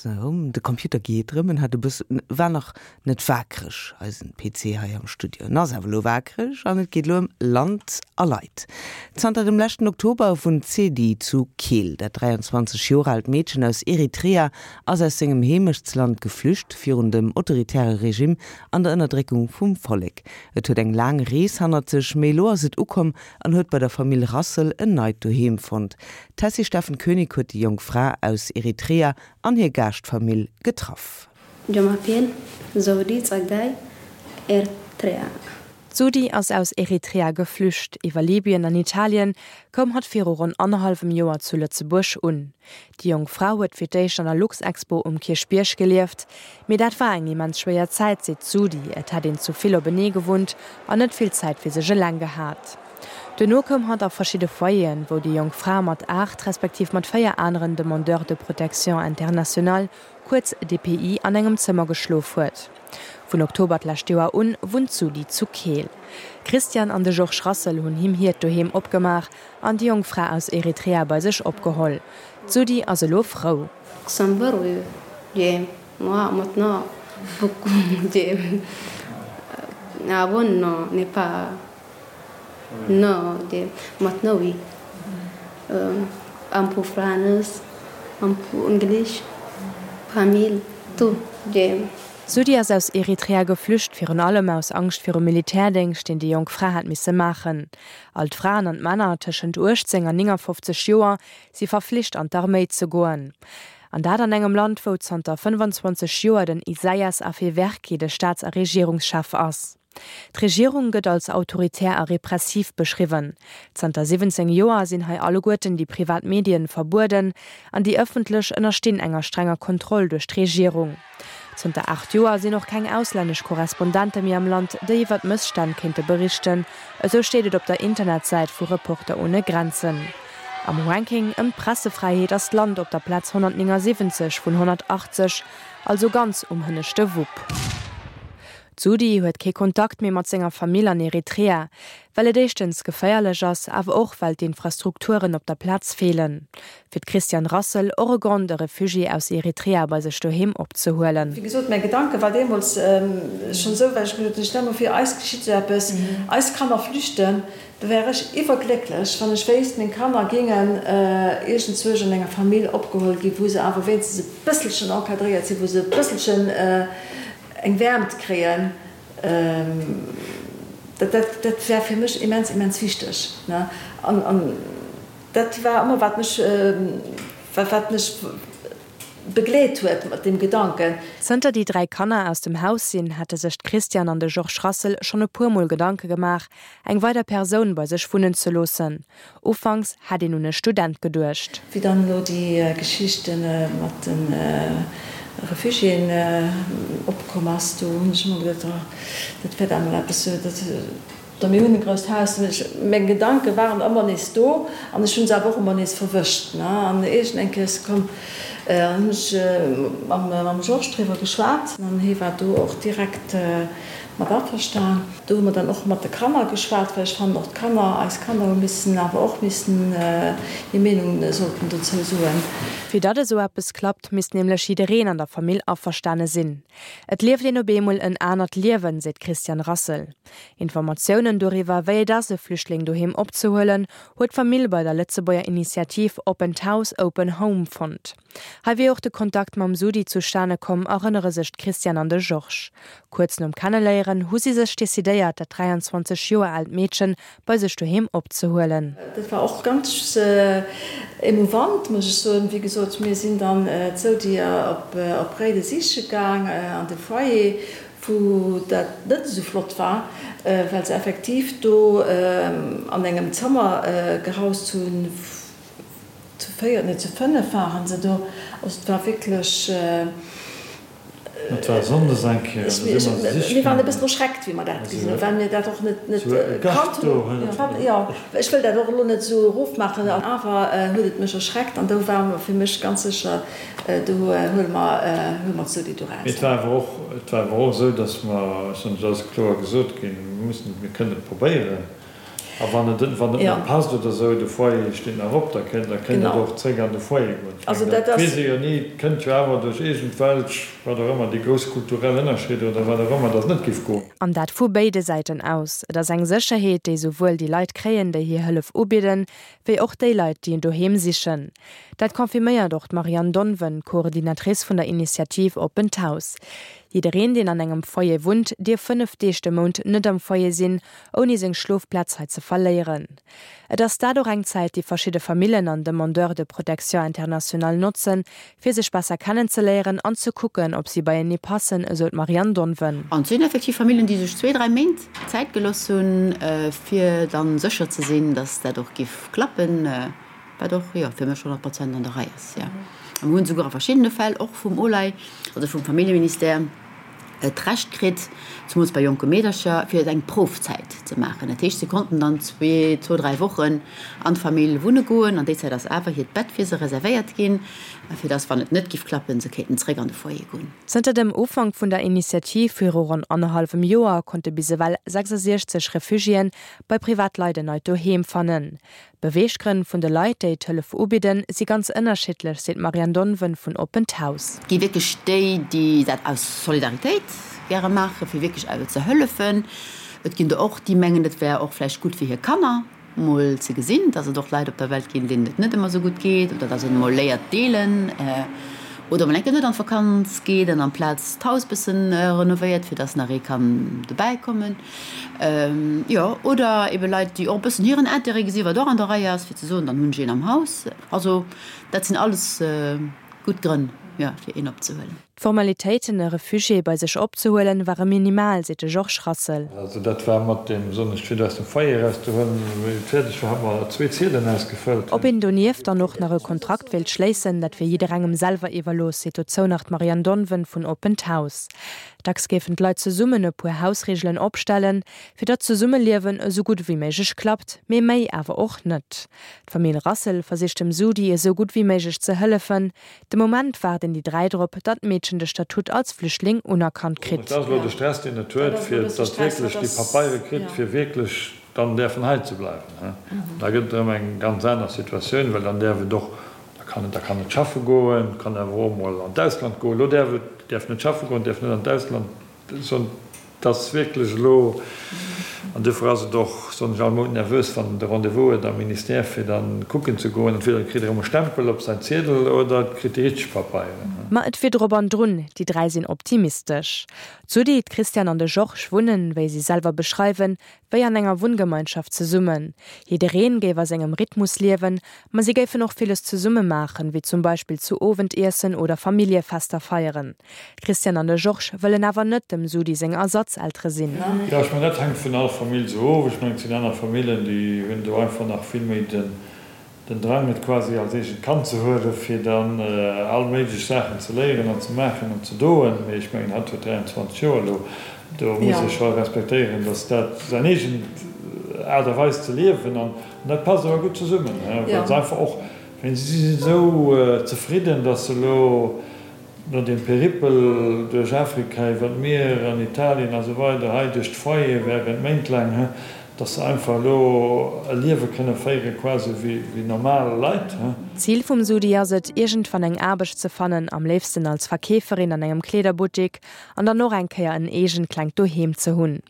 Sou, de Computer geet erëm. En hat e bëssen, war nach net waakreg, eisen PC hei am Studio. En ass awer elo waakreg an et geet elo ëm Land a Leit. Zanter dem leschten Oktober wunnt d'Sedi zu Keel. Dat 23 Joer aalt Meedchen aus Eritrea ass aus sengem Heemechtsland geflücht virun dem autoritäre Regime an der Ënnerdréckung vum Vollek. Et huet eng laang Rees hannert sech, mee elo ass et ukomm an huet bei der Famill Rassel en neit Doheem fonnt. D'Tessy Steffen Koenig huet déi jonk Fra aus Eritrea an hir Gaaschtfamill getraff. Je m'appelle Zodi Tsegay, Eritrea. D'Zodi ass aus Eritrea geflücht. Iwwer Libyen an Italien koum hatt viru ronn annerhallwem Joer zu Lëtzebuerg un. Déi jonk Fra huet fir d'éischt an der Luxexpo um Kierchbierg gelieft. Mee dat war eng immens schwéier Zäit, seet d'Zodi. Et hätt een zu vill openee gewunnt an net vill Zäit fir sech eleng gehat. Duerno koum hatt a verschidde Foyeren, wou déi jonk Fra mat 8, respektiv mat 4 aneren Demandeurs de protection internationale, kuerz DPI, an engem Zëmmer geschlof huet. Vun Oktober d'lescht Joer un wunnt d'Sudi zu Keel. D'Christiane an de Georges Rassel hunn him hiert Doheem opgemaach an déi jonk Fra aus Eritrea bei sech opgeholl. D'Sudi ass elo frou. Non de maintenant oui un peu France un peu English famille tout de. D'Sudi ass aus Eritrea geflücht, virun allem aus Angscht virum Militärdéngscht, deen déi jonk Fra hat misse maachen. All d'Fraen an d'Männer tëschent 18 an 59 Joer si verflicht an d'Arméi ze goen. An dat an engem Land, wou zanter 25 Joer den Isaias Afewerki de Staats a Regierungschef ass. D'Regierung gëtt als autoritär a repressiv beschriwwen. Zanter 17 Joer sinn hei alleguerten déi privat Medien verbueden an déi ëffentlech ënnerstinn enger strenger Kontroll duerch d'Regierung. Zënter 8 Joer sinn och keng auslännesch Korrespondente méi am Land, déi iwwer d'Mësstänn kéinte berichten, esou steet et op der Internetsäit vu Reporter ohne Grenzen. Am Ranking ëm d'Pressefräiheet ass d'Land op der Plaz 179 vun 180, also ganz um hënneschte Wupp. D'Sudi huet kee Kontakt méi mat senger Famill an Eritrea, well et éischtens geféierlech ass, awer och well d'Infrastrukturen op der Plaz feelen. Fir d'Christiane Rassel och e Grond, e Refugié aus Eritrea bei sech doheem opzehuelen. Wéi gesot, mäi Gedanke war deemools schonn esou, well ech gesot hunn, stell mol vir, eis geschitt esou eppes, eis Kanner flüchten, da wär ech iwwerglécklech, wann ech wéisst, meng Kanner géingen iergendzwousch an enger Famill opgeholl ginn, wou se awer wéinstens e bësselchen encadréiert sinn, wou se e bësselchen Eng Wäermt kréien, dat, dat war fir mech immens, immens wichteg. An dat war ëmmer, wat mech, wat mech begleet huet mat deem Gedanken. Zënter déi 3 Kanner aus dem Haus sinn, hätte sech d'Christiane an de Georges Rassel schonn e puer Mol Gedanke gemaach, eng weider Persoun bei sech wunnen ze loossen. Ufanks hätt een un e Student geduecht. Wéi dann elo déi Geschicht mat de Refugiéen opkomm ass, do hunn ech ëmmer geduecht, oh, dat wäert emol eppes, dat. Mir hunn e grousst Haus. Meng Gedanke waren ëmmer nees do an ech hu se awer och ëmmer nees verwëscht. An iergend eng Kéier ass se komm, an hunn ech mam Georges driwwer geschwat an hie war do och direkt mat averstan. Do hu mer dann och mat de Kanner geschwat, well ech fannen och d'Kanner, eis Kanner hu missen awer och missen hir Meenung sollten dozou soen. Fir datt esou eppes klappt, misst nämlech jiddereen an der Famill averstane sinn. Et lieft een op eemol en anert Liewen, seet d'Christiane Rassel. Informatiounen doriwwer, wéi et ass, e Flüchtling doheem opzehuelen, huet d'Famill bei der Lëtzebuerger Initiativ Oppent Haus, Open Home fonnt. Hei wier och de Kontakt mam Sudi zustane komm, erënnere sech d'Christiane an de Georges. Kuerz nom Kenneléieren hu si sech decidéiert, dat 23 Joer aalt Meedchen bei sech doheem opzehuelen. Dat war och ganz emouvant, muss ech soen. Wéi gesot, mir sinn dann d'Sodi op Réiden siche gaang an de Foyer, wou dat net esou flott war, well se effektiv do an engem Zëmmer gehaust hunn, Zu 4, nee zu 5 waren se do. Also et war wierklech. Et war sonndes eng Kéier, da si mer se siche Mir waren e bëssen erschreckt, wéi mer dat gesinn hunn, well mir dat och net kannt hunn. Jo, ech wëll dat och elo net esou erofmaachen, awer huet et mech erschreckt an do war fir mech ganz sécher, do huele mer, huele mer d'Sodi do raus. Mee et war awer och, et war awer och esou, datt mer, ech soen, et ass kloer gesot ginn, mir mussen, mir kënnen et probéieren. A wann et wann et net passt oder esou, de Foyer steet nach op, da kënnt da kënnt et och zréck an de Foyer goen. Ech mengen, dat weess ee jo ni, et kënnt jo awer duerch iergendwelch, wat och ëmmer, déi grouss kulturell Ënnerscheeder oder wat och ëmmer, datt et net géif goen. An dat vu béide Säiten aus. Et ass eng Sécherheet, déi souwuel déi Leit kréien, déi hir Hëllef ubidden, wéi och déi Leit, déi en Doheem sichen. Dat confirméiert och d'Marianne Donven, Coordinatrice vun der Initiativ Oppent Haus. Jiddereen, deen an engem Foyer wunnt, dierf 5 Deeg de Mount net am Foyer sinn, ouni seng Schlofplaz hei ze verléieren. Et ass dat och eng Zäit, déi verschidde Famillen an Demandeurs de protection internationale notzen, fir sech besser kennenzeléieren an ze kucken, ob si beienee passen, esou d'Marianne Donven. An et sinn effektiv Famillen, déi sech zwee, dräi Méint Zäit gelooss hunn, fir dann sécher ze sinn, dass dat och giff klappen, wat och, jo, fir mech 100 Prozent an der Rei ass, jo. A mir hunn esouguer a verschiddene Fäll och vum OLAI, also vum Familljeministère, d'Recht kritt, zemools bei jonke Meedercher, fir eng Proufzäit ze maachen. Dat heescht, si konnten dann zwee, zwou, dräi Wochen an d'Famill wunne goen. An déi Zäit ass awer hiert Bett fir se reservéiert ginn, fir dass, wann et net giff klappen, se kéinten zréck an de Foyer goen. Zënter dem Ufank vun der Initiativ viru ronn annerhallwem Joer konnte bis ewell 66 Refugiéen bei Privatleit en neit Doheem fannen. D'Beweeggrënn vun de Leit, déi d'Hëllef ubidden, si ganz ënnerschiddlech, seet d'Marianne Donven vun Oppent Haus. Et gi wierklech déi, déi dat aus Solidaritéit gäre maachen, fir wierklech ze hëllefen. Et ginn der och, déi mengen, et wär och vläicht gutt fir hir Kanner mol ze gesinn, dass et och Leit op der Welt ginn, deenen et net ëmmer esou gutt geet oder dass een emol léiert deelen oder mol eng Kéier net an d'Vakanz geet an amplaz d'Haus bëssen renovéiert, fir dass nach ee kann dobäi kommen. Jo, oder ebe Leit, déi och e bëssen hiren Intérêt gesinn, wat och an der Rei ass, fir ze soen, dann hunn ech een am Haus. Also dat sinn alles gutt Grënn, jo, fir een opzehuelen. D'Formalitéiten, e Refugié bei sech opzehuelen, ware minimal, seet de Georges Rassel. Also dat war mat deem, soen ech, fir aus dem Foyer erauszehuelen. Wéi et fäerdeg war, hu mer zwee Ziedelen ausgefëllt. Ob een donieft dann och nach e Kontrakt wéilt schléissen, dat wier jidderengem selwer iwwerlooss, seet dozou nach d'Marianne Donven vun Oppent Haus. Dacks géifen d'Leit zesummen e puer Hausreegelen opstellen, fir datt d'Zesummeliewen esou gutt ewéi méiglech klappt, mee méi awer och net. D'Famill Rassel versicht dem Sudi esou gutt ewéi méiglech ze hëllefen. De Moment waarden déi 3 drop, datt d'Meedchen de Statut als Flüchtling unerkannt kritt. Dat ass elo de Stress, deen et huet, fir datt wierklech déi Papeiere kritt, fir wierklech dann däerfen hei ze bleiwen. Da gëtt et erëm eng ganz aner Situatioun, well dann däerf et och Da kann et, da kann et schaffe goen, kann awer och emol an d'Ausland goen. Elo däerf et, däerf net schaffe goen, däerf net an d'Ausland. Soen, et ass wierklech elo, an duerfir ass et och, soen ech, all Mount nervös, wann en de Rendez-vous huet am Ministère, fir da kucken ze goen. Entweder et kritt e erëm e Stempel op säin Ziedel oder et kritt déi richteg Papeieren. Ma et wier drop an drun, déi 3 sinn optimistesch. D'Sudi, d'Christiane an de Georges wunnen, wéi si selwer beschreiwen, wéi an enger Wunngemeinschaft zesummen. Jiddereen géif a sengem Rhythmus liewen, ma si géifen och villes zesumme maachen, wéi zum Beispill zu Owend iessen oder Familljefester feieren. D'Christiane an de Georges wëllen awer net dem Sudi seng Ersatzeltere sinn. Jo, ech mengen, dat hänkt vun all Famill esou of. Ech mengen, et sinn aner Famillen, déi hunn do einfach nach vill méi den Den Drang et quasi als eegent Kand ze huelen, fir dann all méiglech Saachen ze léieren an ze maachen an ze doen. Mee ech mengen, hatt huet 23 Joer elo, do muss ee scho respektéieren, datt dat säin eegent Aart a Weis ze liewen an dat passt awer gutt zesummen, well se einfach och, si sinn esou zefridden, datt se elo No dem Peripel duerch Afrika, iwwer d'Mier an Italien a sou weider, hei duerch d'Foyer während Méint laang, dass se einfach elo e Liewe kënne féiere quasi wéi normal Leit. D'Zil vum Sudi ass et, iergendwann eng Aarbecht ze fannen, am léifsten als Verkeeferin an engem Kleederbuttik, an dann och eng Kéier en eegent klengt Doheem ze hunn.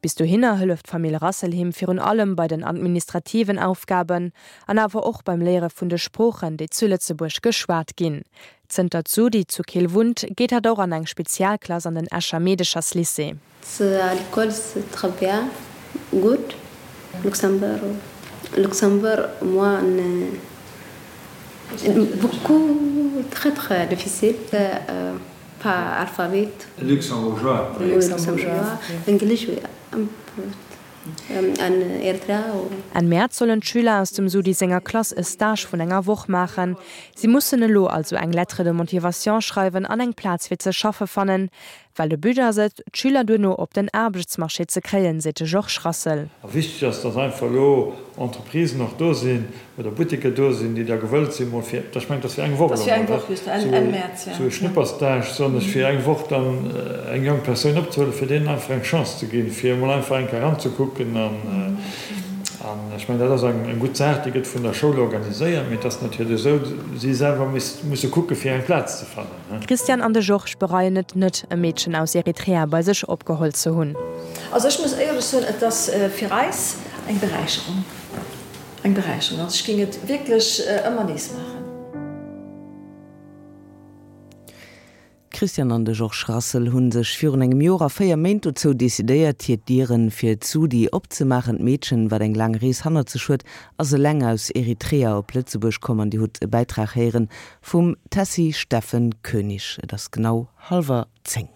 Bis dohinner hëlleft d'Famill Rassel him virun allem bei den administrativen Aufgaben an awer och beim Léiere vun de Sproochen, déi zu Lëtzebuerg geschwat ginn. Zënter d'Sudi zu Keel wunnt, geet hatt och an eng Spezialklass an den Escher Meedecherslycée. À l'école c'est très bien gutt Luxembourg Luxembourg moi beaucoup très très difficile Pas alphabet. Luxembourgeois. Luxembourgeois. English un peu an Eritrea. Enn Mäerz sollen d'Schüler aus dem Sudi senger Klass e Stage vun enger Woch maachen. Si mussen elo also eng Lettre de motivation schreiwen an eng Plaz fir ze schaffe fannen. Well de But ass et, d'Schüler duerno op den Aarbechtsmarché ze kréien, seet de Georges Rassel. A wichteg ass, dass einfach elo Entreprisen och do sinn oder Butteker do sinn, déi da gewëllt sinn, mol fir, ech mengen, et ass fir eng Woch elo mol, esou e Schnupperstage, soen ech, fir eng Woch dann eng jonk Persoun opzehuelen, fir deenen einfach eng Chance ze ginn, fir emol einfach eng Kéier eranzekucken. An ech mengen, dat ass eng gutt Saach, déi gëtt vun der Schoul organiséiert, mee et ass natierlech esou, si selwer musse kucke fir eng Plaz ze fannen. D'Christiane an de Georges bereien et net, e Meedchen aus Eritrea bei sech opgeholl ze hunn. Also ech muss éierlech soen, et ass fir eis eng Beräicherung, eng Beräicherung. Also ech géing et wierklech ëmmer nees maachen. D'Christiane an de Georges Rassel hu sech virun engem Joer a 4 Méint dozou decidéiert, hir Dieren fir d'Sudi opzemaachen. D'Meedchen, wat eng laang Rees hannert sech huet, ass eleng aus Eritrea op Lëtzebuerg komm an Dir hutt e Bäitrag héieren vum Tessy Steffen Koenig. Et ass genau hallwer 10.